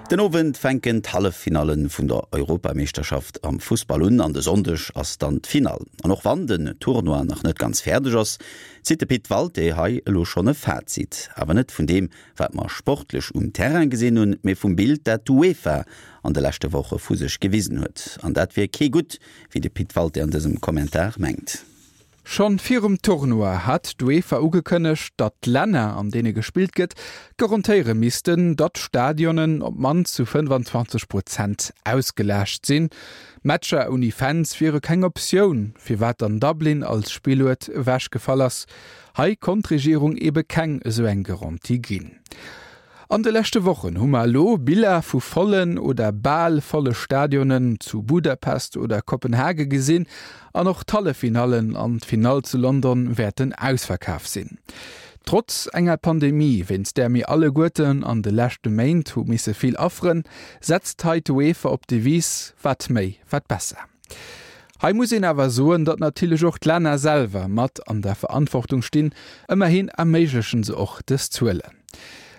Den Owend fänken d'Halleffinalle vun der Europameeschterschaft am Fussball un an de Sonndeg ass dann d'Finall. An och wann den Tournoi nach net ganz fäerdeg ass, zitt de Pit Walté hei elo schonn e Fazit. Awer net vun deem, wat mer sportlech um Terrain gesinn hunn, mee vum Bild, dat d'UEFA an de leschte Woche vu sech gewisen huet. An dat wier kee gutt, wéi de Pit Walté an dësem Kommentar mengt. Schonn virum Tournoi hat d'UEFA ugekënnegt, datt d'Länner, an deene gespillt gëtt, garantéiere missten, datt d'Stadionen op d'mannst zu 25 Prozent ausgelaascht sinn. Matcher ouni Fans wiere keng Optioun, firwat dann Dublin als Spilluert ewechgefall ass. Hei konnt d'Regierung ebe keng esou eng Garantie ginn. An de leschte Wochen hu mer elo Biller vu vollen oder bal volle Stadionen zu Budapest oder Kopenhage gesinn an och d'Halleffinallen an d'Finall zu London wäerten ausverkaf sinn. Trotz enger Pandemie, wéinst där mir alleguerten an de leschte Méint hu misse vill afferen, setzt hei d'UEFA op d'Devise wat méi, wat besser. Hei muss een awer soen, datt natierlech och d'Länner selwer mat an der Verantwortung stinn, ëmmerhin erméiglechen se och dës Zuelen.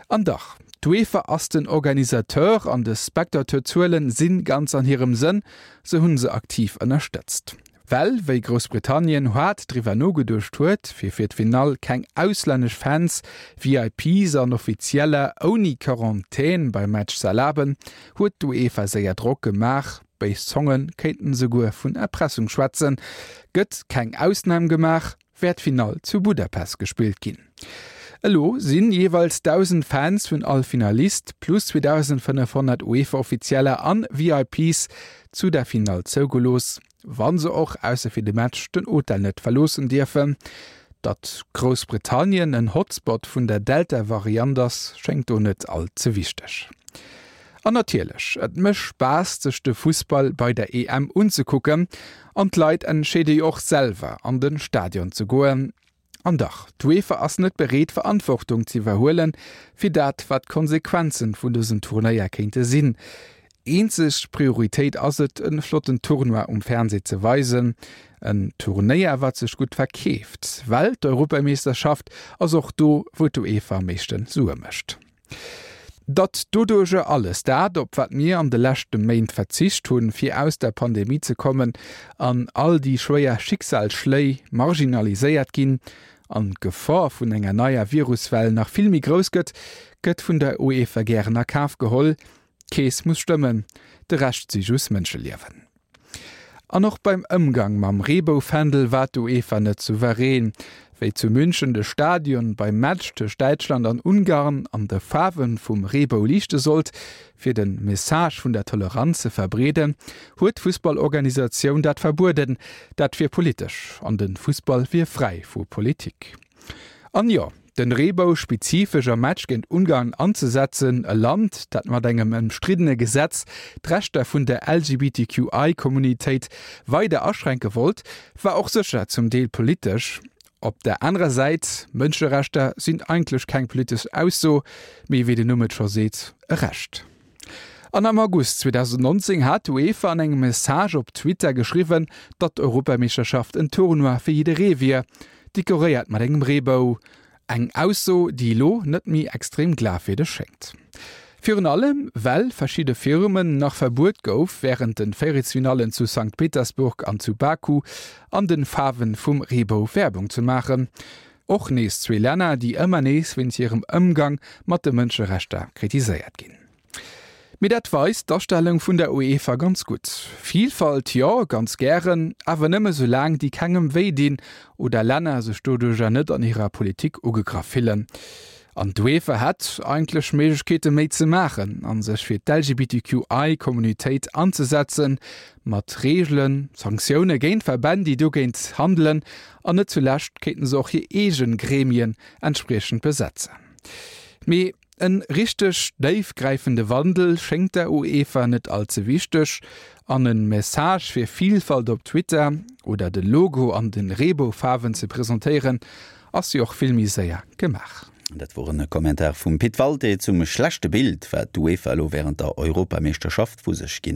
An dach, d'UEFA ass den Organisateur an de Spectateurzuelen si ganz an hirem Sënn, se hunn se aktiv ënnerstëtzt. Well wéi Groussbritannien haart driwwer nogeduecht huet, fir fir d'Finall keng auslännesch Fans, VIPs an Offizieller ouni Quarantän beim Match ze erlaben, huet d'UEFA séier Drock gemaach. Béis Zonge kéinten esouguer vun Erpressung schwätzen. Gëtt keng Ausnam gemaach, wäert d'Finall zu Budapest gespillt ginn. Elo sinn jeeweils 1.000 Fans vun all Finalist plus 2.500 UEFA-Offizieller an VIPs zu der Finall zougelooss, wa se och, ausser fir de Match, den Hotel net verloossen dierfen. Datt Groussbritannien en Hotspot vun der Delta-Variant ass, schéngt do net all ze wichteg. An natierlech, et mécht Spaass sech de Fussball bei der EM unzekucken an d'Leit entscheede jo och selwer an de Stadion ze goen. An dach, d'UEFA ass net bereet Verantwortung ze iwwerhuelen fir dat wat d'Konsequenzen vun dësem Turnéier kéinte sinn. Eenzeg Prioritéit ass et en flotten Tournoi um Fernseh ze weisen. En Turnéier wat sech gutt verkeeft, well d'Europameeschterschaft ass och do wou d'UEFA am meeschten Sue mécht. Datt doduerjer alles dat, op wat mir an de leschte Méint verzicht hunn, fir aus der Pandemie ze kommen, an all déi schwéier Schicksalsschléi marginaliséiert ginn an d'Gefor vun enger neier Viruswell nach vill méi grouss gëtt, gëtt vun der UEFA gären a Kaf geholl. D'Keess muss stëmmen, de Rescht si just Mënscheliewen. An och beim Ëmgang mam Reeboufändel war d'UEFA net souverän. Wéi zu München de Stadion beim Match tëscht Däitschland an Ungarn an de Faarwe vum Reebou liichte sollt, fir de Message vun der Toleranz ze verbreeden, huet d'Fussballorganisatioun dat verbueden. Dat wier politesch an de Fussball wier fräi vu Politik. An jo, den Reebou spezifesch am Match géint Ungarn anzesetzen, e Land, dat mat engem ëmstriddene Gesetz d'Rechter vun der LGBTQI-Communitéit weider aschränke wollt, war och sécher zum Deel politesch. Op der anerer Säit, Mënscherechter sinn eigentlech keng politesch Ausso, mee wéi den Numm et scho seet, e Recht. An am August 2019 hat d'UEFA an engem Message op Twitter geschriwwen, datt d'Europameeschterschaft en Tournoi fir jidderee wier, dekoréiert mat engem Reebou. Eng Ausso, déi elo net méi extrem glafwierdeg schéngt. Virun allem, well verschidde Firmen nach verbuet gouf, wärend de Véierelsfinallen zu Sankt Petersburg an zu Baku an de Faarwe vum Reebou Werbung ze maachen. Och nees zwee Länner, déi ëmmer nees wéinst hirem Ëmgang mat de Mënscherechter kritiséiert ginn. Mee dat weist d'Astellung vun der UEFA ganz gutt. Vilfalt jo, ganz gären, awer nëmme soulaang déi kengem wéi dinn oder Länner sech doduercher net an hirer Politik ugegraff fillen. An d'UEFA hätt eigentlech Méiglechkeete méi ze maachen a sech fir d'LGBTQI-Communautéit anzesetzen, mat Reegelen, Sanktioune géint Verbänn, déi dogéint handelen an net zulescht kéinten se och hir eege Gremien entspriechend besetzen. Mee En richteg déifgräifende Wandel schéngt der UEFA net all ze wichteg, an en Message fir Vielfalt op Twitter oder de Logo an den Reeboufaarwen ze presentéieren ass jo och vill méi séier gemaach. Dat wor en Kommentar vum Pit Walté zum schlechte Bild, wat d'UEFA elo wärend der Europameeschterschaft vu sech ginn huet.